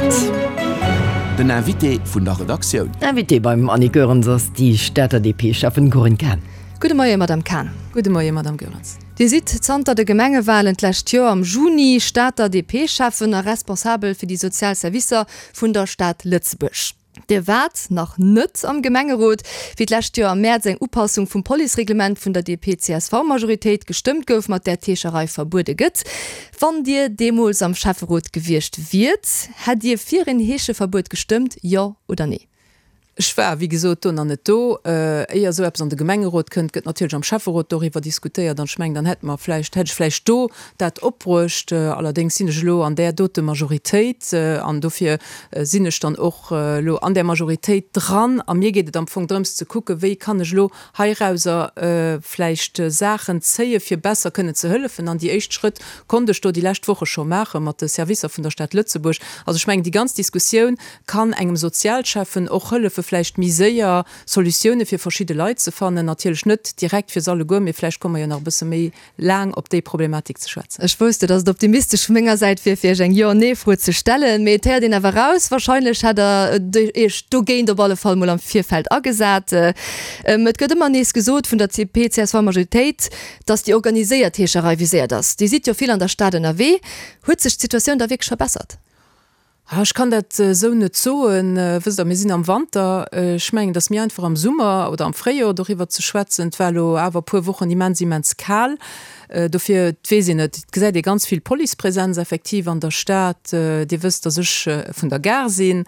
8. Den Invité vun der Redaktioun. Invitée beim Annick Goerens ass déi Stater DP-Schäffen Corinne Cahen. Gudde Moie Madame Cahen. Gudde Moie Madame Goerens. Dir sidd zanter de Gemengewalen d'lescht Joer am Juni Stater DP-Schäffen a responsabel fir déi sozial Servicer vun der Stad Lëtzebuerg. Dir waart nach net am Gemengerot, wéi d'lescht Joer am Mäerz eng Upassung vum Policereglement vun der DP-CSV-Majoritéit gestëmmt gouf, mat där d'Heescherei verbuede gëtt. Wann Dir deemools am Schäfferot gewiescht wiert, hätt Dir fir een Heescheverbuet gestëmmt, jo oder nee? Ech war, wéi gesot, do nach net do. Éier esou eppes an de Gemengerot kënnt, gëtt natierlech am Schäfferot doriwwer diskutéiert. An ech mengen, dann hätte mer vläicht, hätt ech vläicht do dat opbruecht. Allerdéngs sinn ech elo an där dote Majoritéit an dofir sinn ech dann och elo an där Majoritéit dran. A mir geet et am Fong drëms ze kucken, wéi kann ech elo heirauser vläicht Saachen zéie fir besser kënnen ze hëllefen. An déi éischt Schrëtt konnt ech do déi lescht Woche scho maache mat de Servicer vun der Stad Lëtzebuerg. Also ech mengen, déi ganz Diskussioun kann engem Sozialschäffen och hëllefe vläicht méi séier Solutioune fir verschidde Leit ze fannen. Natierlech net direkt fir se alleguer, mee vläicht komme mer jo nach e bësse méi laang op déi Problematik ze schwätzen. Ech wousst jo, dass et optimistesch vu menger Säit wier, fir Iech eng Jo-Nee-Fro ze stellen, mee et héiert een awer raus, wahrscheinlech hätt Der Iech dogéint op alle Fall mol am Virfeld agesat. Et gëtt ëmmer nees gesot vun der CP-CSV-Majoritéit, dass déi organiséiert Heescherei viséiert ass. Dir sidd jo vill an der Stad ënnerwee. Huet sech d'Situatioun da wierklech verbessert? Ech kann dat esou net soen. Wësst Der, mir sinn am Wanter. Ech mengen, et ass méi einfach am Summer oder am Fréijoer doriwwer ze schwätzen. Et war elo awer e puer Wochen immens, immens kal. Dofir, et weess een net. Et gesäit ee ganz vill Policepresenz effektiv an der Stad. Dir wësst, datt ech vun der Gare sinn.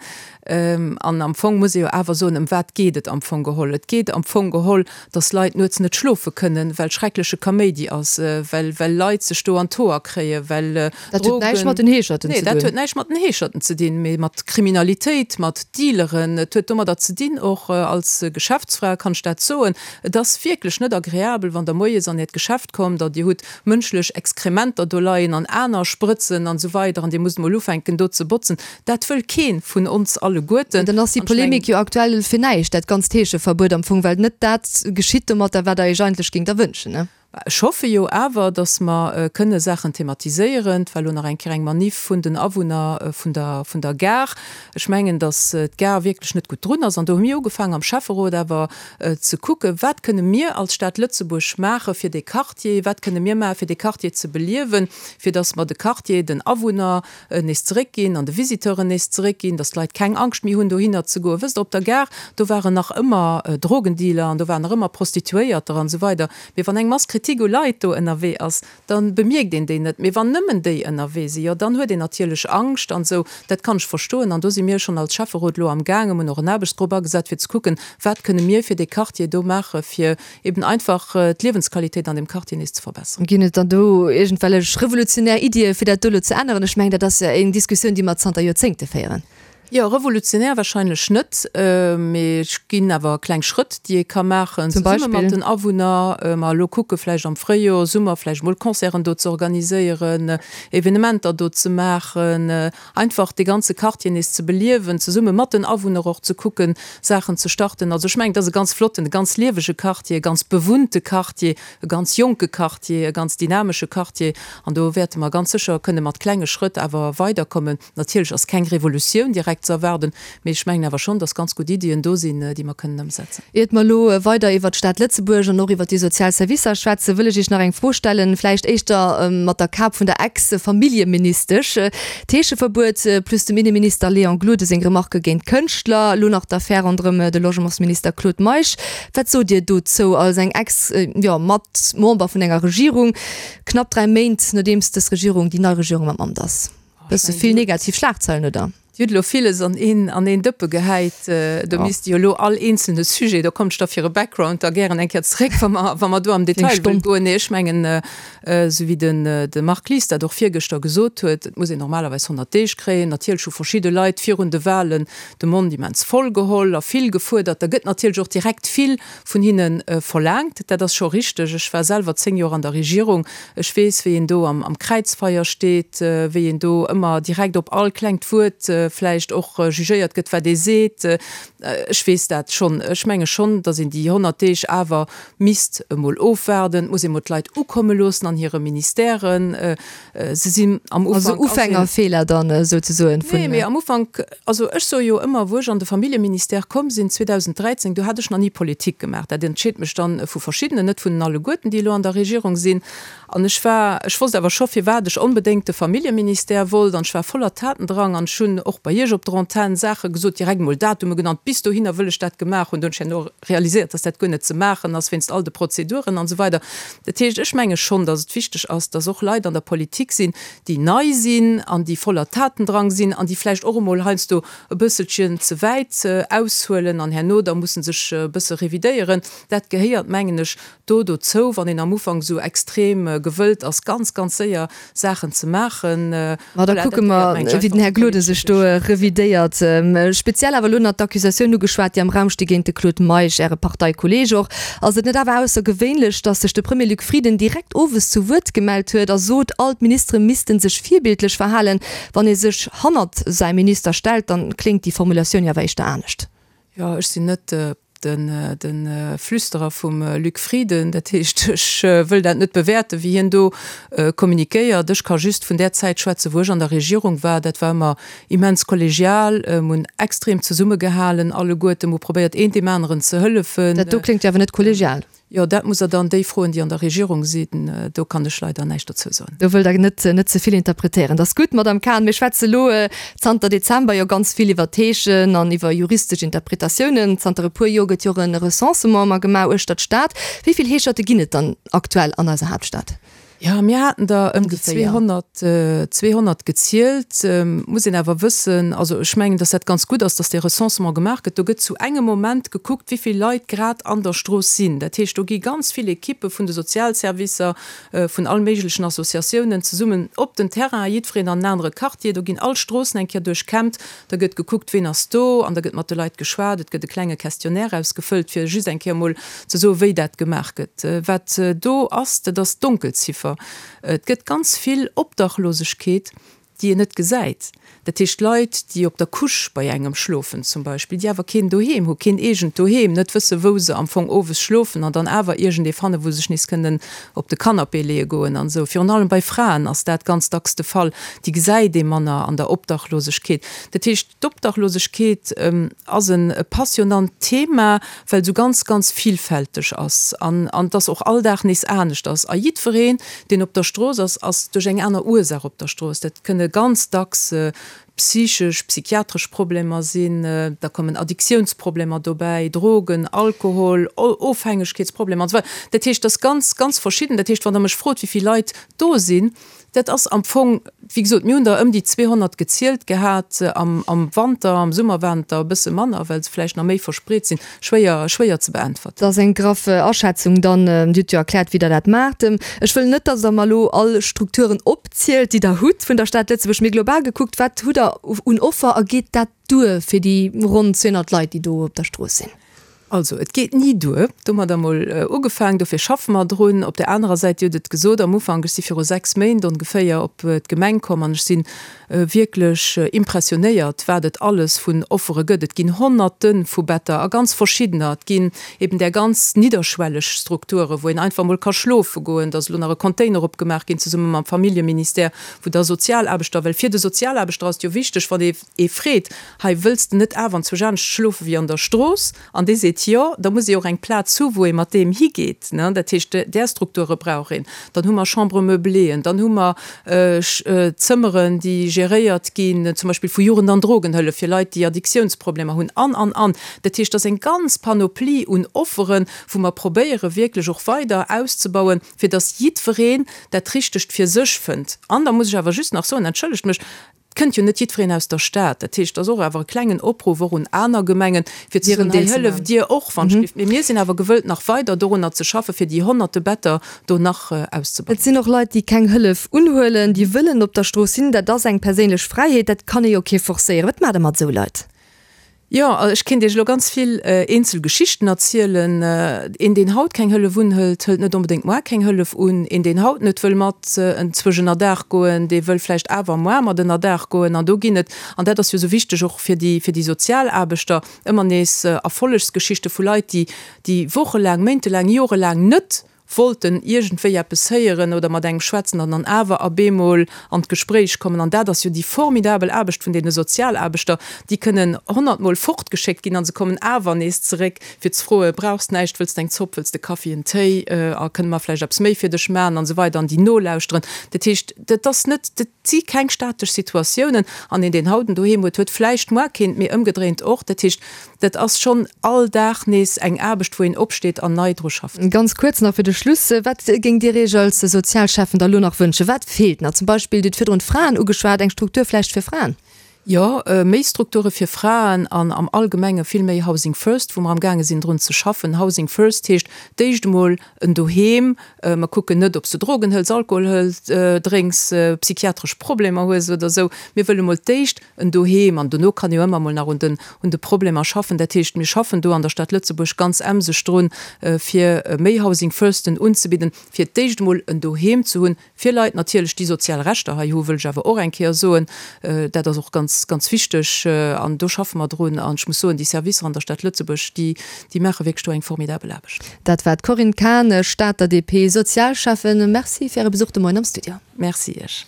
An am Fong muss ee jo awer soen, ëm wat geet et am Fong geholl? Et geet am Fong geholl, datt Leit nuets net schlofe kënnen, well schreckleche Kaméidi ass, well well Leit sech do an d'Hoer kréien, well Dat huet näischt mat den Heescherten ze dun. Nee, dat huet näischt mat den Heescherten ze dinn, mee mat Kriminalitéit, mat Dealeren. Et huet domadder ze dinn, och als Geschäftsfra kann ech dat soen, et ass wierklech net agreabel, wann Der moies an Äert Geschäft kommt a Dir hutt mënschlech Exkrementer do leien an aner Sprëtzen an esou weider an Dir musst emol ufänken do ze botzen. Dat wëll kee vun ons alleguerten. Dann ass déi Polemik jo aktuell fir näischt, dat ganzt Heescheverbuet am Fong, well net dat geschitt domatter, wat Der Iech eigentlech géingt erwënschen, ne? Ech hoffe jo awer, datt mer kënne Saachen thematiséieren. Et war elo nach eng Kéier eng Maniff vun den Awunner vun der, vun der Gare. Ech mengen, datt d'Gare wierklech net gutt drun ass. An do hu mir ugefaangen am Schäfferot awer ze kucken, wat kënne mir als Stad Lëtzebuerg maache fir dee Quartier, wat kënne mir maache fir dee Quartier ze beliewen, fir datt mer de Quartier den Awunner nees zeréckginn an de Visiteuren nees zeréckginn, datt d'Leit keng Angscht méi hunn dohinner ze goen. Wësst Der, op der Gare, do waren nach ëmmer Drogendealer an do waren nach ëmmer Prostituéierter an esou weider. Mee wann eng Mass Kritik u Leit do ënnerwee ass, da bemierkt een déi net. Mee wann nëmmen déi ënnerwee sinn, jo dann huet een natierlech Angscht an esou. Dat kann ech verstoen. An do si mir schonn als Schäfferot elo am gaangen, hunn och en Aarbechtsgrupp agesat, fir ze kucken, wat kënne mir fir dee Quartier do maache fir eben einfach d'Liewensqualitéit an deem Quartier nees ze verbesseren. Ginn et dann do iergendwellech revolutionär Iddie fir dat do elo ze änneren? Ech mengen, dat ass jo eng Diskussioun, déi mer zanter Joerzéngte féieren. Jo, revolutionär wahrscheinlech net, mee et ginn awer kleng Schrëtt, déi ee ka maachen, Zum zesumme mat Beispill? den Awunner. Mer elo kucke vläicht am Fréijoer, Summer vläicht mol Concerten do ze organiséieren, Evenementer do ze maachen, Einfach dee ganze Quartier nees ze beliewen, zesumme mat den Awunner och ze kucken, Saachen ze starten. Also ech mengen, et ass e ganz flotten, e ganz liewege Quartier, e ganz bewunnte Quartier, e ganz jonke Quartier, e ganz dynamesche Quartier. An do wäerte mer ganz sécher kënne mat klenge Schrëtt awer weiderkommen. Natierlech ass keng Revolutioun direkt ze erwaarden, mee ech mengen awer schonn, dass ganz gutt Iddien do sinn, déi mer kënnen ëmsetzen. Iert mer elo weider iwwert d'Stad Lëtzebuerg an och iwwert déi sozial Servicer schwätzen, wëll ech Iech nach eng Fro stellen, vläicht éischter mat der Kap vun der Ex-Familljeministesch. D'Heescheverbuet plus dem Inneminister Léon Gloden seng Remarke géint Kënschtler, elo nach d'Affär ronderëm de Logementsminister Claude Meisch. Wat sot Dir dozou als eng Ex-, jo, Mat-Member vun enger Regierung, knapp 3 Méint nodeems dës Regierung, déi nei Regierung am Amt ass? Bësse vill negativ Schlagzeilen, oder? Dir hutt elo villes an een, an een Dëppe gehäit. Do misst jo elo all eenzelne Sujet, do kommt ech da fir e Background da gären eng Kéier zeréck, wa mer, wa mer do am Detail wëllen goen. Nee, ech mengen, esou wéi den, de Marc Lies dat och virgëschter gesot huet, et muss een normalerweis 100 Deeg kréien. Natierlech hu verschidde Leit virun de Wahlen de Mond immens voll geholl a vill gefuerdert. Da gëtt natierlech och direkt vill vun hinne verlaangt. Dat ass scho richteg. Ech war selwer 10 Joer an der Regierung. Ech weess, wéi een do am Kräizfeier steet, wéi een do ëmmer direkt op all klengt Wuert vläicht och jugéiert gëtt, wat ee seet. Ech weess dat schonn. Ech menge schonn, datt een déi 100 Deeg awer misst emol ofwaarden. Et muss ee mol d'Leit ukomme loossen an hire Ministèren. Se sinn am Ufank. Also Ufängerfeeler dann souzesoen vun. Nee, mee am Ufank, also ech soe jo ëmmer, wou ech an de Familljeministère komm sinn 2013, do hat ech nach ni Politik gemaach. Dat entscheet mech dann vu verschiddenen, net vun den alleguerten, déi elo an der Regierung sinn. An ech war, ech wosst awer scho firwat ech onbedéngt de Familljeministère wollt an ech war voller Tatendrang an ech hunn och bei Iech op der Antenn Saache gesot, direkt emol Datume genannt, bis dohinner wëll ech dat gemaach hunn. Do hunn ech herno realiséiert, dass dat guer net ze maachen ass wéinst all de Prozeduren an esou weider. Dat heescht, ech menge schonn, dass et wichteg ass, dass och Leit an der Politik sinn, déi nei sinn an déi voller Tatendrang sinn an déi vläicht och emol heiansdo e bësselchen ze wäit aushuelen an herno da musse sech e bësse revidéieren. Dat gehéiert, mengen ech, do dozou, wann een am Ufank esou extrem gewëllt ass, ganz, ganz séier Saachen ze maachen. Ma da kucke mer, wéi den Här Gloden sech do revidéiert. Speziell awer elo nach d'Accusatioun ugeschwat, déi am Raum sti géint de Claude Meisch, Äre Parteikolleeg och. Ass et net awer aussergewéinlech, datt sech de Premier Luc Frieden direkt owes zu Wuert gemellt huet a sot, all d'Ministere misste sech virbildlech verhalen? Wann ee sech hannert säi Minister stellt, dann kléngt déi Formulatioun jo awer éischter anescht. Jo, ech sinn net de Flüsterer vum Luc Frieden, dat heescht, ech wëll dat net bewäerten, wéi hien do kommunikéiert. Ech ka just vun där Zäit schwätzen, wou ech an der Regierung war. Dat war ëmmer immens kollegial. Mir hunn extrem zesummegehalen alleguerten. Mir hu probéiert, een deem aneren ze hëllefen. Dat do kléngt jo awer net kollegial. Jo, dat musst Der dann déi froen, déi an der Regierung sinn. Do kann ech leider näischt dozou soen. Do wëllt Der net net ze vill interpretéieren. Dat ass gutt, Madamm Cahen. Mir schwätze elo zanter Dezember jo ganz vill iwwer d'Heeschen an iwwer juristesch Interpretatiounen. Zanter e puer Joer gëtt jo och e Recensement ëmmer gemaach uechter d'Stad. Wéi vill Heescherte ginn et dann aktuell an eiser Haaptstad? Jo, mir haten der ëm déi 200, 200 gezielt. Muss een awer wëssen, also ech mengen, datt dat ganz gutt ass, datt dee Recensement gemaach gëtt. Do gëtt zu engem Moment gekuckt, wéi vill Leit grad an der Strooss sinn. Dat heescht, do gi ganz vill Ekippe vun de Sozialservicer, vun all méiglechen Associatiounen zesummen op den Terrain, jiddwereen an en anere Quartier. Do ginn all Stroossen eng Kéier duerchkämmt. Da gëtt gekuckt, ween ass do, an da gëtt mat de Leit geschwat. Et gëtt e klenge Questionnaire ausgefëllt, fir just eng Kéier emol ze soen, wéi dat gemaach gëtt. Wat do ass, dat ass d'Donkelziffer. Et gëtt ganz vill Obdachlosegkeet, déi een net gesäit. Dat heescht Leit, déi op der Couche bei engem schlofen zum Beispill, déi awer keen Doheem hu, keen eegent Doheem, net wësse wou se am Fong owes schlofen an dann awer iergendee fannen, wou se sech nees kënnen op de Canapé leeë goen an esou. Virun allem bei Fraen ass dat ganz dacks de Fall. Déi gesäit ee manner an der Obdachlosegkeet. Dat heescht, d'Obdachlosegkeet ass e passionnant Thema, well se ganz, ganz vielfälteg ass an an dass och all Dag nees anescht ass. A jiddwereen, deen op der Strooss ass, ass duerch eng aner Ursaach op der Strooss. Dat kënne ganz dacks psychesch, psychiatresch Problemer sinn, da kommen Addiktiounsproblemer dobäi, Drogen, Alkohol, Ofhängegkeetsproblemer an esou weider. Dat heescht, dat ass ganz, ganz verschidden. Dat heescht, wann Der mech frot, wéi vill Leit do sinn, dat ass am Fong, wéi gesot, mir hunn der ëm déi 200 gezielt gehat am Wanter, am Summer waren et der e bësse manner, well se vläicht nach méi verspreet sinn. Schwéier, schwéier ze beäntwerten. Dat ass eng graff Aschätzung dann. Dir hutt jo erkläert, wéi Der dat maacht. Ech wëll net, datt Der mer elo all Strukturen opzielt, déi Der hutt vun der Stad Lëtzebuerg, mee global gekuckt, wat hutt Der un Offer a geet dat duer fir déi ronn 200 Leit, déi do op der Strooss sinn? Also, et geet ni duer. Domadder emol ugefaang, dofir schaffe mer drun. Op där anerer Säit, Dir hutt et gesot am Ufank, ech si viru 6 Méint ongeféier op d'Gemeng komm an ech si wierklech impressionéiert, wat et alles vun Offere gëtt. Et ginn Honnerte vu Better a ganz verschiddener. Et ginn eben där ganz nidderschwelleg Strukture, wou een einfach emol ka schlofe goen. Da ass elo nach e Container opgemaach ginn, zesumme mam Familljeministère, wou da Sozialaarbechter, well fir de Sozialaarbechter ass et jo wichteg, wann ee ee freet, hei wëlls de net awer anzwousch anescht schlofe wéi an der Strooss? An dee seet jo, da muss ee och eng Plaz hu wou ee mat deem higeet. Dat heescht, där Strukture brauch een. Dann hu mer Chambre-meublée-en, dann hu mer Zëmmeren, déi geréiert ginn, zum Beispill vu Jugend an Drogenhëllef fir Leit, déi Addiktiounsproblemer hunn an, an, an. Dat heescht, et ass eng ganz Panoplie un Offeren, wou mer probéiere wierklech och weider auszebauen, fir datt jiddwereen dat Richtegt fir sech fënnt. An da muss ech awer just nach soen, entschëllegt mech, Et kënnt jo net jiddwereen aus der Stad. Dat heescht, et ass och awer e klengen Opruff och un aner Gemengen, fir ze soen, hei hëlleft Dir och wann ech. Mee mir sinn awer gewëllt, nach weider dorunner ze schaffen, fir déi honnerte Better do nach auszebauen. Et sinn och Leit, déi keng Hëllef unhuelen, déi wëllen op der Strooss sinn. Dat ass eng perséinlech Fräiheet, dat kann ee jo kee forcéieren. Wat maacht Der mat esou Leit? Jo, ech kéint Iech elo ganz vill eenzel Geschichten erzielen. Een, deen haut keng Hëllef unhëlt, hëlt net onbedéngt moar keng Hëllef un. Een, deen haut net wëll mat enzwousch ënnerdaach goen, dee wëll vläicht awer moar mat ënnerdaach goen. An do ginn et, an dat ass jo esou wichteg och fir déi, fir déi Sozialaarbechter, ëmmer nees Erfollegsgeschichte vu Leit, déi, déi wochelaang, méintelaang, jorelaang net wollten iergendwéi eppes héieren oder mat engem schwätzen an dann awer a bemol an d'Gespréich kommen. An dat ass jo déi formidabel Aarbecht vun deene Sozialaarbechter, déi kënnen honnertmol fortgeschéckt ginn a se kommen awer nees zeréck, fir ze froen, Brauchs näischt, wëlls de eng Zopp, wëlls de Kaffi, en Téi a kënne mer vläicht eppes méi fir dech maachen an esou weider an déi nolauschteren. Dat heescht, dat ass net, dat si keng statesch Situatiounen an een, deen haut en Doheem huet, huet vläicht muar keent, mee ëmgedréint och. Dat heescht, Dat ass schonn all Dag nees eng Aarbecht, wou een opsteet an nei dru schafft. Ganz kuerz nach fir de Schluss, Wat géingt Dir Iech als Sozialschäffen da lo nach wënschen? Wat feelt nach? Zum Beispill, Dir hutt virdrun d'Fraen ugeschwat, eng Struktur vläicht fir Fraen? Jo, méi Strukture fir Fraen an am Allgemenge vill méi Housing First, wou mer amgaange sinn drun ze schaffen. Housing First heescht d'éischt emol en Doheem. Mer kucken net, ob s de Drogen hëls, Alkohol hëls, drénks, psychiatresch Problemer hues oder esou. Mir wëlle mol d'éischt en Doheem, an dono kann ee jo ëmmer mol nach un den, un de Problemer schaffen. Dat heescht, mir schaffen do an der Stad Lëtzebuerg ganz emseg drun, fir méi Housing Firsten unzebidden, fir d'éischt emol en Doheem ze hunn fir Leit natierlech, déi sozial Rechter hei hu, wëll ech awer och eng Kéier soen. Dat ass och ganz, ganz wichteg an do schaffe mer drun. An ech muss soen, déi Servicer an der Stad Lëtzebuerg, déi, déi maache wierklech do eng formidabel Aarbecht. Dat war d'Corinne Cahen, Stater DP-Sozialschäffen. Merci fir Äre Besuch de Moien am Studio. Merci Iech.